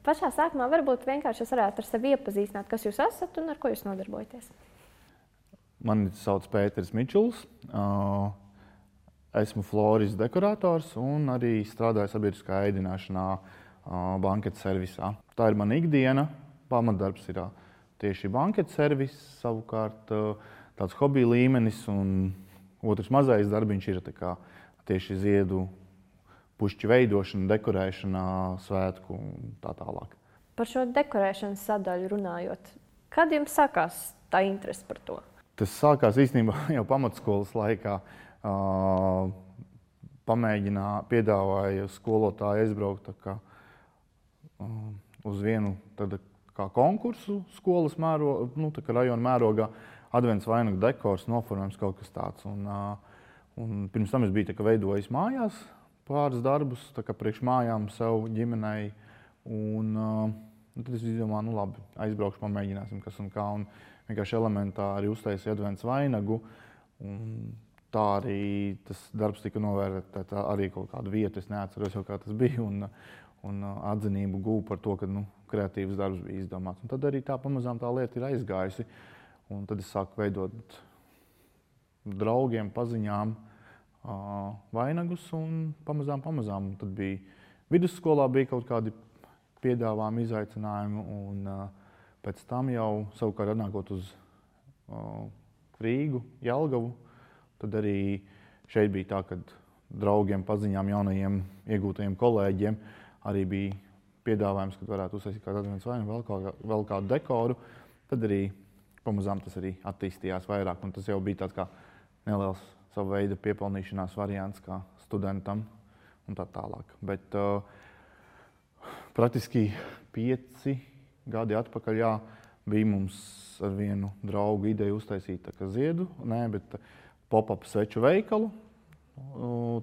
Pašā sākumā varbūt vienkārši es varētu ar sevi iepazīstināt, kas jūs esat un ar ko jūs nodarbojaties. Mani sauc Pēters Mičuls. Esmu florists dekorators un arī strādāju sabiedriskā ēdināšanā banketu servisā. Tā ir mana ikdiena. Pamatdarbs ir tieši banketu servis, savukārt tāds hobija līmenis, un otrs mazais darbiņš ir tieši ziedu pušķu veidošana, dekorēšana, svētku un tā tālāk. Par šo dekorēšanas sadaļu runājot, kad jums sākās tā interese par to? Tas sākās īstenībā jau pamatskolas laikā. Piedāvāja skolotāji aizbraukt uz vienu konkursu skolas rajona mērogā. Advents vainagu dekors, noformējums, kaut kas tāds. Un pirms tam es biju veidojis mājās pāris darbus, priekš mājām sev, ģimenei. Un tad es izdomāju, labi, aizbraukšu, pamēģināsim, kas un kā. Un vienkārši elementāri uztaisīju advents vainagu. Un tā arī tas darbs tika novērtēts arī kaut kādu vietu. Es neatceros jau, kā tas bija. Un atzinību guvu par to, ka kreatīvs darbs bija izdomāts. Un tad arī pamazām tā lieta ir aizgājusi. Un tad es sāku veidot draugiem, paziņām vainagus un pamazām. Tad bija vidusskolā kaut kādi piedāvājumi, izaicinājumi. Un pēc tam jau savukārt atnākot uz Rīgu, Jelgavu, tad arī šeit bija tā, ka draugiem, paziņām, jaunajiem iegūtajiem kolēģiem arī bija piedāvājums, kad varētu uztaisīt kādu advents vainagu, vēl kādu dekoru. Tad arī pamazām tas arī attīstījās vairāk, un tas jau bija tāds kā neliels sava veida piepelnīšanās variants kā studentam un tā tālāk. Bet praktiski 5 gadi atpakaļ bija mums ar vienu draugu ideja uztaisīt ziedu, bet pop-up sveču veikalu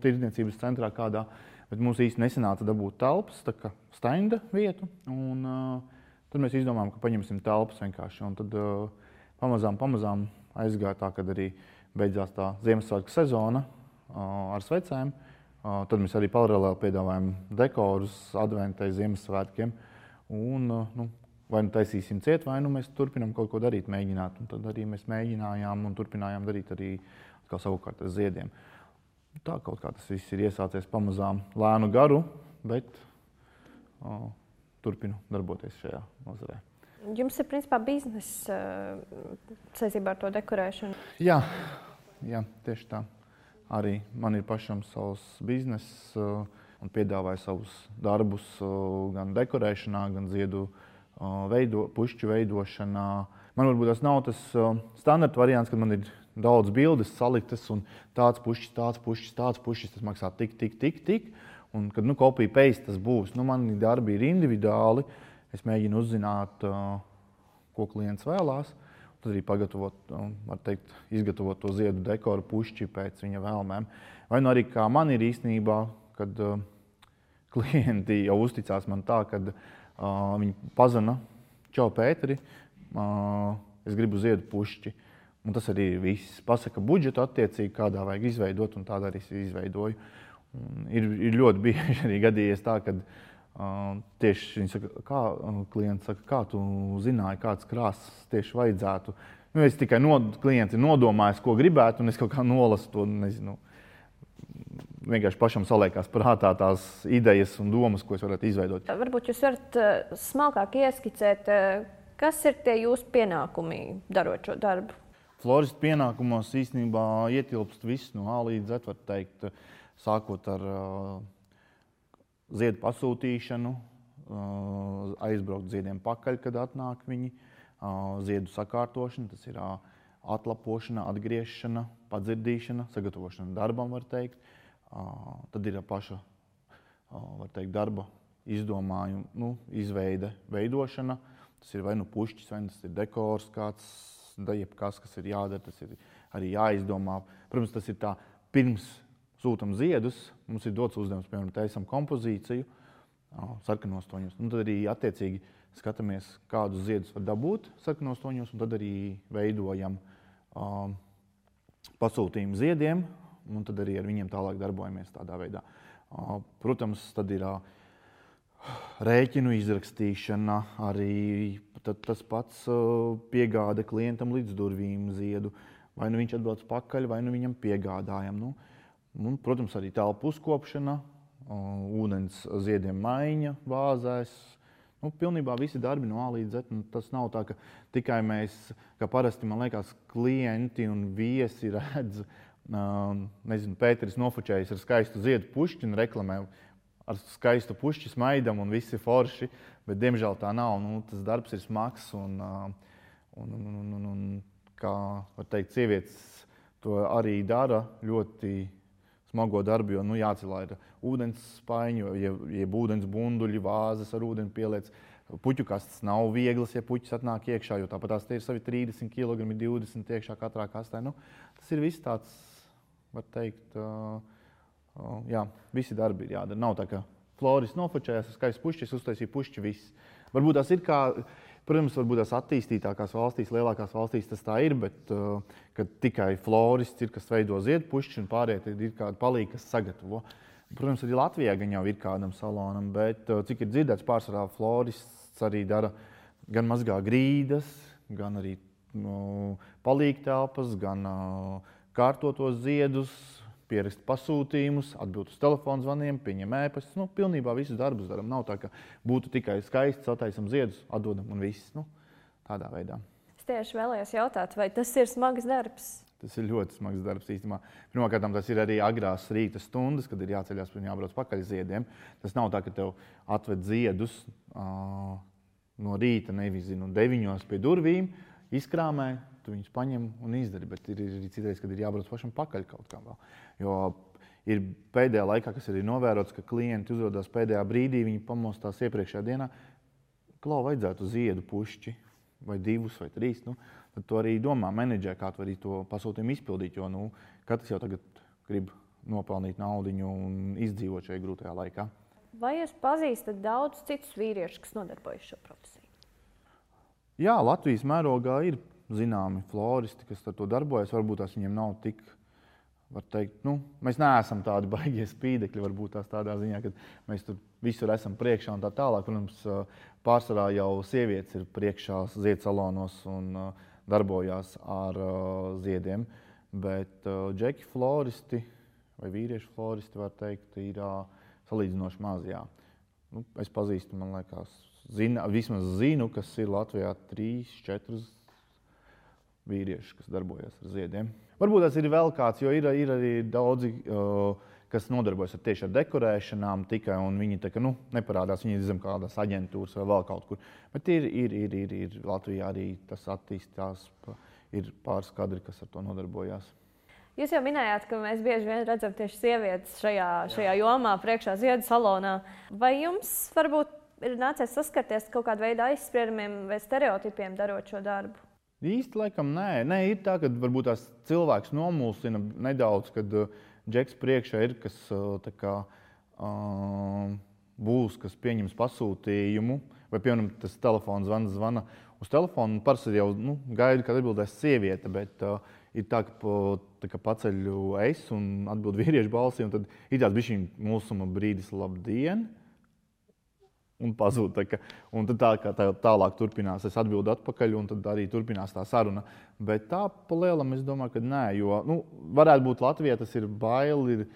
tirdzniecības centrā kādā. Bet mums īsti nesanāca dabūt telpas, stenda vietu. Un tad mēs izdomājām, ka paņemsim telpas vienkārši. Un tad pamazām aizgāja tā, kad arī beidzās tā Ziemassvētku sezona ar svecēm. Tad mēs arī paralēli piedāvājam dekorus adventai Ziemassvētkiem. Un vai nu taisīsim ciet, vai nu mēs turpinām kaut ko darīt, mēģināt. Un tad arī mēs mēģinājām un turpinājām darīt arī savukārt ar ziediem. Tā kaut kā tas viss ir iesācies pamazām lēnu garu, bet turpinu darboties šajā nozarē. Jums ir principā bizness saistībā ar to dekorēšanu? Jā, tieši tā. Arī man ir pašam savs bizness un piedāvāju savus darbus gan dekorēšanā, gan ziedu pušķu veidošanā. Man varbūt tas nav tas standarta variants, kad man ir daudz bildes saliktas un tāds pušķis. Tas maksā tik. Un kad copy paste tas būs, mani darbi ir individuāli. Es mēģinu uzzināt, ko klients vēlās. Tad arī izgatavot to ziedu dekoru pušķi pēc viņa vēlmēm. Vai nu arī kā man ir īstenībā, kad klienti jau uzticās man tā, kad viņi pazana: "Čau, Pēteri, es gribu ziedu pušķi." Un tas arī ir viss. Pasaka budžetu attiecīgi, kādā vajag izveidot, un tādā arī es izveidoju. Un ir ļoti bieži arī gadījies tā, kad tieši viņi saka, klients saka, kā tu zināji, kāds krāsas tieši vajadzētu. Es tikai klients ir nodomājis, ko gribētu, un es kaut kā nolasu to, nezinu. Vienkārši pašam saliekās prātā tās idejas un domas, ko es varētu izveidot. Varbūt jūs varat smalkāk ieskicēt, kas ir tie jūsu pienākumi darot šo darbu? Floristu pienākumos īstenībā ietilpst viss no A līdz Z, var teikt, sākot ar ziedu pasūtīšanu, aizbraukt ziediem pakaļ, kad atnāk viņi, ziedu sakārtošana, tas ir atlapošana, atgriešana, padzirdīšana, sagatavošana darbam, var teikt. Tad ir paša, var teikt, darba izdomājuma, izveide, veidošana. Tas ir vai nu pušķis, vai tas ir dekors kāds, jebkas, kas ir jādara, tas ir arī jāizdomā. Protams, tas ir tā, pirms sūtam ziedus, mums ir dots uzdevums, piemēram, taisam kompozīciju sarkanos toņos. Tad arī attiecīgi skatāmies, kādus ziedus var dabūt sarkanos toņos, un tad arī veidojam pasūtījumu ziediem, un tad arī ar viņiem tālāk darbojamies tādā veidā. Protams, tad ir rēķinu izrakstīšana, arī tas pats piegāde klientam līdz durvīm ziedu. Vai nu viņš atbrauc pakaļ, vai nu viņam piegādājam. Un, protams, arī telpu uzkopšana, ūdens ziediem maiņa vāzēs. Pilnībā visi darbi no A līdz Z. Tas nav tā, ka tikai mēs, kā parasti, man liekas, klienti un viesi redz, Pēteris nofočējas ar skaistu ziedu pušķi un reklamē ar skaistu pušķi smaidam un viss ir forši, bet diemžēl tā nav. Tas darbs ir smags un kā var teikt, sievietes to arī dara ļoti smago darbu, jo jācelā ir ūdens spaiņu, jeb ūdens bunduļi, vāzes ar ūdeni pieliec. Puķu kastes nav vieglas, ja puķis atnāk iekšā, jo tāpat tās te ir savi 30 kg, 20 iekšā katrā kastē. Tas ir viss tāds, var teikt, visi darbi ir jādara. Nav tā, ka florists nofočējās ar skaistu pušķi, uztaisīja pušķi viss. Varbūt tas ir kā, protams, varbūt tās attīstītākās valstīs, lielākās valstīs tas tā ir, bet kad tikai florists ir, kas veido ziedu pušķi un pārējie ir kādi palīgi, kas sagatavo. Protams, arī Latvijā gan jau ir kādam salonam, bet cik ir dzirdēts, pārsvarā florists arī dara gan mazgā grīdas, gan arī palīgtelpas, gan kārtotos ziedus, pierakst pasūtījumus, atbild uz telefonu zvaniem, pieņem ēpastus. Pilnībā visus darbus daram. Nav tā, ka būtu tikai skaisti, sataisam ziedus, atdodam un viss. Tādā veidā. Es tieši vēlējos jautāt, vai tas ir smags darbs? Tas ir ļoti smags darbs īstenībā. Pirmkārt, tas ir arī agrās rīta stundas, kad ir jāceļās un jābrauc pakaļ ziediem. Tas nav tā, ka tev atved ziedus no rīta, nevis 9 pie durvīm, izkrāmē, tu viņus paņem un izdari. Bet ir arī citreiz, kad ir jābrauc pašam pakaļ kaut kā vēl. Jo ir pēdējā laikā, kas arī novērots, ka klienti uzrodās pēdējā brīdī, viņi pamostās iepriekšējā dienā, klau vajadzētu ziedu pušķi, vai 2 vai 3. Tad tu arī domā, menedžē, kā tu arī to pasūtījumu izpildīt, jo katrs jau tagad grib nopelnīt naudiņu un izdzīvot šajā grūtajā laikā. Vai jūs pazīstat daudz citus vīriešus, kas nodarbojas šo profesiju? Jā, Latvijas mērogā ir zināmi floristi, kas ar to darbojas. Varbūt tās viņiem nav tik, var teikt, mēs neesam tādi baigie spīdekļi, varbūt tās tādā ziņā, ka mēs tur visur esam priekšā un tā tālāk. Protams, pārsvarā jau sievietes ir priekšā ziedsalоnos un darbojās ar ziediem, bet džeki floristi vai vīriešu floristi, var teikt, ir salīdzinoši maz. Es pazīstu, man liekas, vismaz zinu, kas ir Latvijā 3-4 vīrieši, kas darbojas ar ziediem. Varbūt tas ir vēl kāds, jo ir arī daudzi, kas nodarbojas tieši ar dekorēšanām tikai, un viņi tā, neparādās, viņi ir zem kādās aģentūras vai vēl kaut kur. Bet ir Latvijā arī tas attīstās, ir pāris kadri, kas ar to nodarbojās. Jūs jau minējāt, ka mēs bieži vien redzam tieši sievietes šajā jomā, priekšā ziedu salonā. Vai jums varbūt ir nācies saskarties kaut kādu veidu aizspriedumiem vai stereotipiem darot šo darbu? Īsti laikam nē. Nē, ir tā, ka varbūt tās cilvēks nomulsina nedaudz, kad džeks priekšā ir, kas tā kā būs, kas pieņems pasūtījumu, vai piemēram tas telefons zvana uz telefonu, parasti jau gaida, kad atbildēs sieviete, bet ir tā, ka paceļu es un atbild vīriešu balsī, un tad ir tāds bišķiņ mulsuma brīdis labdien, un pazūd. Un tad tālāk turpinās, es atbildu atpakaļ, un tad arī turpinās tā saruna. Bet tā pa lielam es domāju, ka nē, jo varētu būt Latvijā, tas ir baili, ir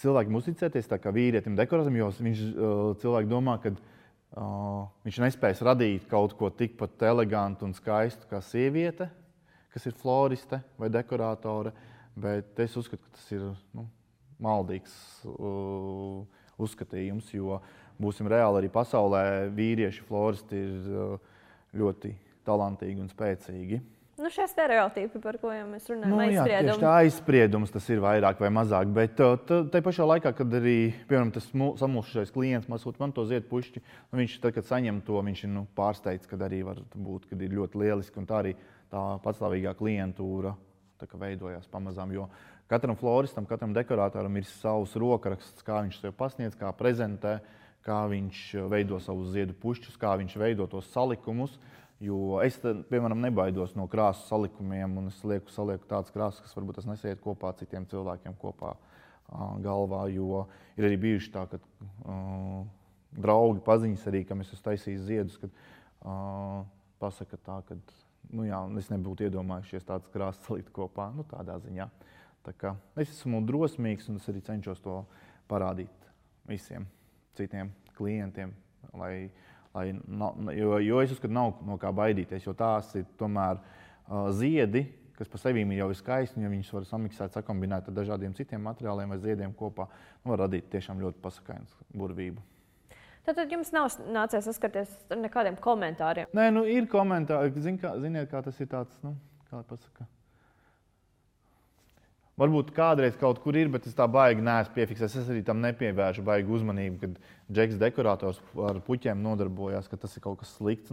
cilvēkiem uzticēties tā kā vīrietim dekorātam, jo cilvēki domā, ka viņš nespēs radīt kaut ko tikpat elegantu un skaistu kā sieviete, kas ir floriste vai dekorātore, bet es uzskatu, ka tas ir maldīgs uzskatījums, jo būsim reāli arī pasaulē, vīrieši floristi ir ļoti talantīgi un spēcīgi. Šie stereotipi, par ko jau mēs runājam, aizspriedums. Jā, tieši tā aizspriedums, tas ir vairāk vai mazāk, bet tai pašā laikā, kad arī, piemēram, tas samulsušais klients man to ziedu pušķi, viņš tad, kad saņem to, viņš ir pārsteigts, kad arī var būt, kad ir ļoti lieliski, un tā arī tā patstāvīgā klientūra veidojās pamazām, jo katram floristam, katram dekorātoram ir savs rokraksts, kā viņš sev pasniedz, kā prezentē, kā viņš veido savus ziedu pušķus, kā viņš veido tos salikumus. Jo es, piemēram, nebaidos no krāsu salikumiem, un es salieku tādas krāsas, kas varbūt tas nesiet kopā citiem cilvēkiem kopā galvā, jo ir arī bijuši tā, ka draugi, paziņas arī, kam es esmu taisījis ziedus, kad pasaka tā, ka es nebūtu iedomājušies tādas krāsas salikt kopā, tādā ziņā. Tā kā es esmu drosmīgs un es arī cenšos to parādīt visiem citiem klientiem, jo es uzskatu, nav no kā baidīties, jo tās ir tomēr ziedi, kas pa sevīm jau ir skaisti, un ja viņus var samiksēt, sakombinēt ar dažādiem citiem materiāliem vai ziediem kopā, var radīt tiešām ļoti pasakainu burvību. Tātad jums nav nācies saskarties ar nekādiem komentāriem? Nē, ir komentāri. Ziniet, kā tas ir tāds, kā pasaka. Varbūt kādreiz kaut kur ir, bet es tā baigi neesmu piefiksējis. Es arī tam nepievēršu baigi uzmanību, kad Džeks dekorators ar puķiem nodarbojās, ka tas ir kaut kas slikts.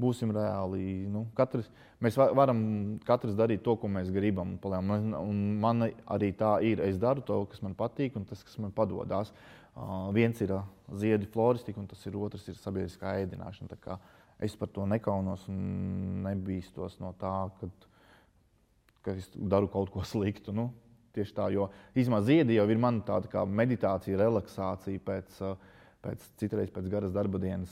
Būsim reāli. Mēs varam katrs darīt to, ko mēs gribam. Un man arī tā ir. Es daru to, kas man patīk un tas, kas man padodās. Viens ir ziedu floristika, un tas ir otrs ir sabiedriskā ēdināšana. Tā kā es par to nekaunos un nebīstos no tā, ka es daru kaut ko sliktu. Tieši tā, jo īstenībā ziedi jau ir man tāda kā meditācija, relaksācija citreiz pēc garas darba dienas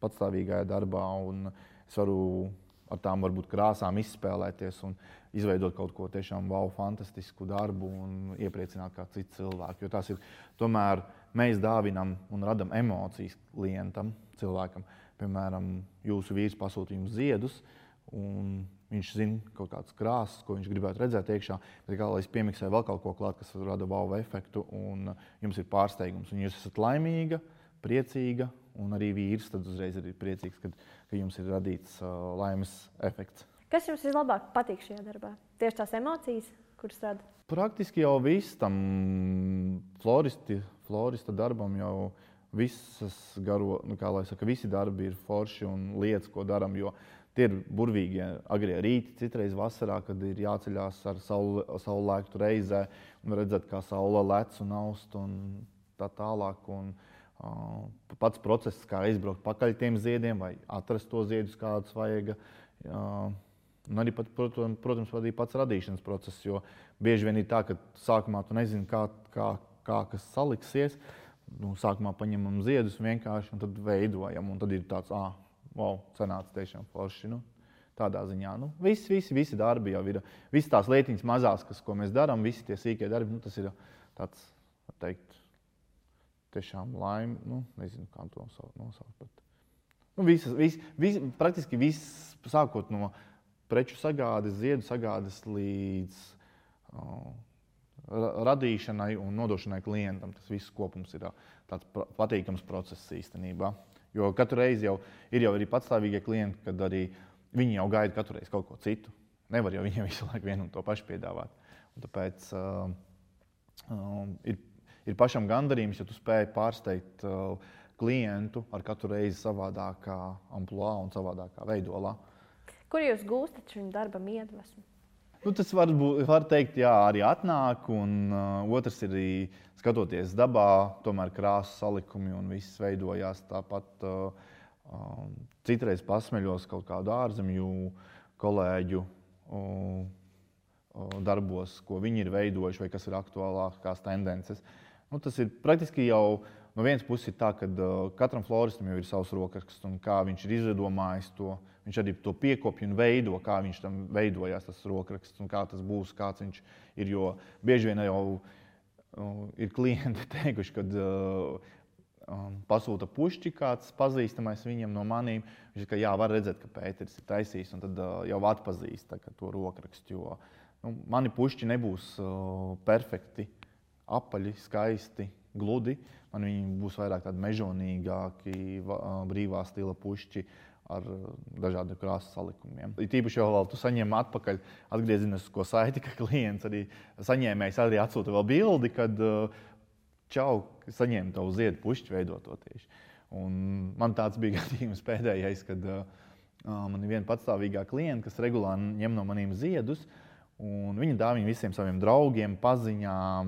patstāvīgajā darbā, un es varu ar tām varbūt krāsām izspēlēties un izveidot kaut ko tiešām fantastisku darbu un iepriecināt kā citu cilvēku. Jo tās ir, tomēr mēs dāvinam un radam emocijas klientam, cilvēkam. Piemēram, jūsu vīrs pasūta jums ziedus, un viņš zina kaut kādas krāsas, ko viņš gribētu redzēt iekšā, bet kā lai es piemiksēju vēl kaut ko klāt, kas rada wow efektu, un jums ir pārsteigums, un jūs esat laimīga, priecīga, un arī vīrs tad uzreiz ir priecīgs, ka jums ir radīts laimes efekts. Kas jums vislabāk patīk šajā darbā? Tieši tās emocijas, kuras rada? Praktiski jau viss tam florista darbam jau visas visi darbi ir forši un lietas, ko daram, jo tie ir burvīgie agrie rīti, citreiz vasarā, kad ir jāceļās ar saulēktu reizē un redzēt, kā saule lec un aust un tā tālāk. Pats process, kā izbraukt pakaļ tiem ziediem vai atrast to ziedus, kādus vajag. Un arī, protams, arī pats radīšanas process, jo bieži vien ir tā, ka sākumā tu nezini, kā kas saliksies. Sākumā paņemam ziedus vienkārši un tad veidojam. Un tad ir tāds, wow, sanāca tiešām forši. Tādā ziņā. Visi darbi jau ir. Visas tās lietiņas mazās, ko mēs darām, visi tie sīkie darbi, tas ir tāds, var teikt, tiešām laime. Nezinu, kā to nosaukt. Praktiski viss, sākot no preču sagādes, ziedu sagādes līdz radīšanai un nodošanai klientam. Tas viss kopums ir tāds patīkams process īstenībā. Jo katru reizi jau ir arī patstāvīgie klienti, kad arī viņi jau gaida katru reizi kaut ko citu. Nevar jau viņiem visu laiku vienu un to pašu piedāvāt. Un tāpēc ir pašam gandarījums, ja tu spēj pārsteigt klientu ar katru reizi savādākā amplua un savādākā veidolā. Kur jūs gūstat šim darbam iedvesmu? Tas var teikt, jā, arī atnāk, un otrs ir arī skatoties dabā, tomēr krāsas salikumi un viss veidojās tāpat. Citreiz pasmeļos kaut kādu ārzemju kolēģu darbos, ko viņi ir veidojuši vai kas ir aktuālākās tendences. Tas ir praktiski jau no vienas puses ir tā, ka katram floristam jau ir savs rokraksts un kā viņš ir izdomājis to. Viņš arī to piekopja un veido, kā viņš tam veidojās tas rokraksts un kā tas būs, kāds viņš ir. Jo bieži vien jau ir klienti teikuši, kad pasūta pušķi kāds pazīstamais viņam no manīm. Viņš ir, ka jā, var redzēt, ka Pēteris ir taisījis un tad jau atpazīst to rokrakstu. Jo mani pušķi nebūs perfekti, apaļi, skaisti, gludi. Man viņi būs vairāk tādi mežonīgāki, brīvā stila pušķi ar dažādiem krāsas salikumiem. Tīpaši jau vēl tu saņem atpakaļ atgriezenisko saiti, ka klients arī saņēmējs arī atsūta vēl bildi, kad čau, saņēma tavu ziedu pušķi veidoto tieši. Un man tāds bija gadījums pēdējais, kad man ir viena patstāvīgā klienta, kas regulāri ņem no maniem ziedus, un viņa dāvina visiem saviem draugiem, paziņām,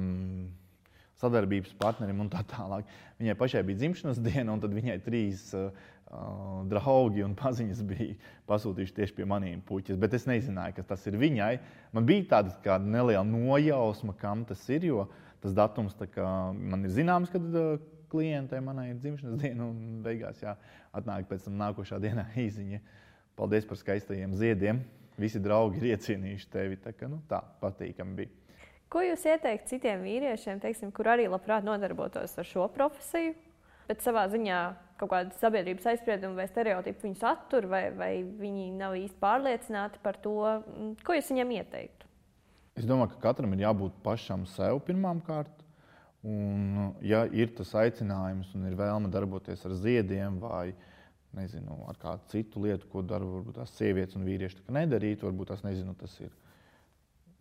sadarbības partnerim un tā tālāk. Viņai pašai bija dzimšanas diena, un tad viņai 3 draugi un paziņas bija pasūtījuši tieši pie maniem puķis, bet es nezināju, ka tas ir viņai. Man bija tāda neliela nojausma, kam tas ir, jo tas datums man ir zināms, kad klientei manai ir dzimšanas diena, un beigās atnāk pēc tam nākošā dienā īziņa. Paldies par skaistajiem ziediem. Visi draugi ir iecienījuši tevi. Tā patīkami bija. Ko jūs ieteikt citiem vīriešiem, teiksim, kur arī labprāt nodarbotos ar šo profesiju, bet savā ziņā kaut kāda sabiedrības aizsprieduma vai stereotipu viņus attur, vai viņi nav īsti pārliecināti par to? Ko jūs viņiem ieteiktu? Es domāju, ka katram ir jābūt pašam sev pirmām kārt. Un, ja ir tas aicinājums un ir vēlme darboties ar ziediem vai ar kādu citu lietu, ko dara varbūt tās sievietes un vīrieši nedarīt, varbūt tas ir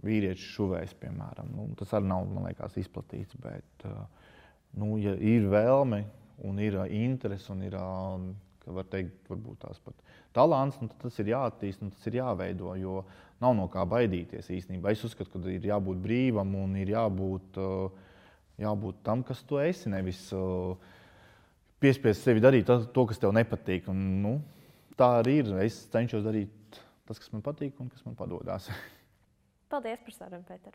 vīriešu šuvējs, piemēram. Tas arī nav, man liekas, izplatīts, bet ja ir vēlme un ir interese un ir, var teikt, varbūt tās pat talants, tad tas ir jāattīst un tas ir jāveido, jo nav no kā baidīties īstenībā. Es uzskatu, ka ir jābūt brīvam un ir jābūt tam, kas tu esi, nevis piespiest sevi darīt to, kas tev nepatīk. Un, tā arī ir. Es cenšos darīt tas, kas man patīk un kas man padodas. Paldies par sarunu, Pēter.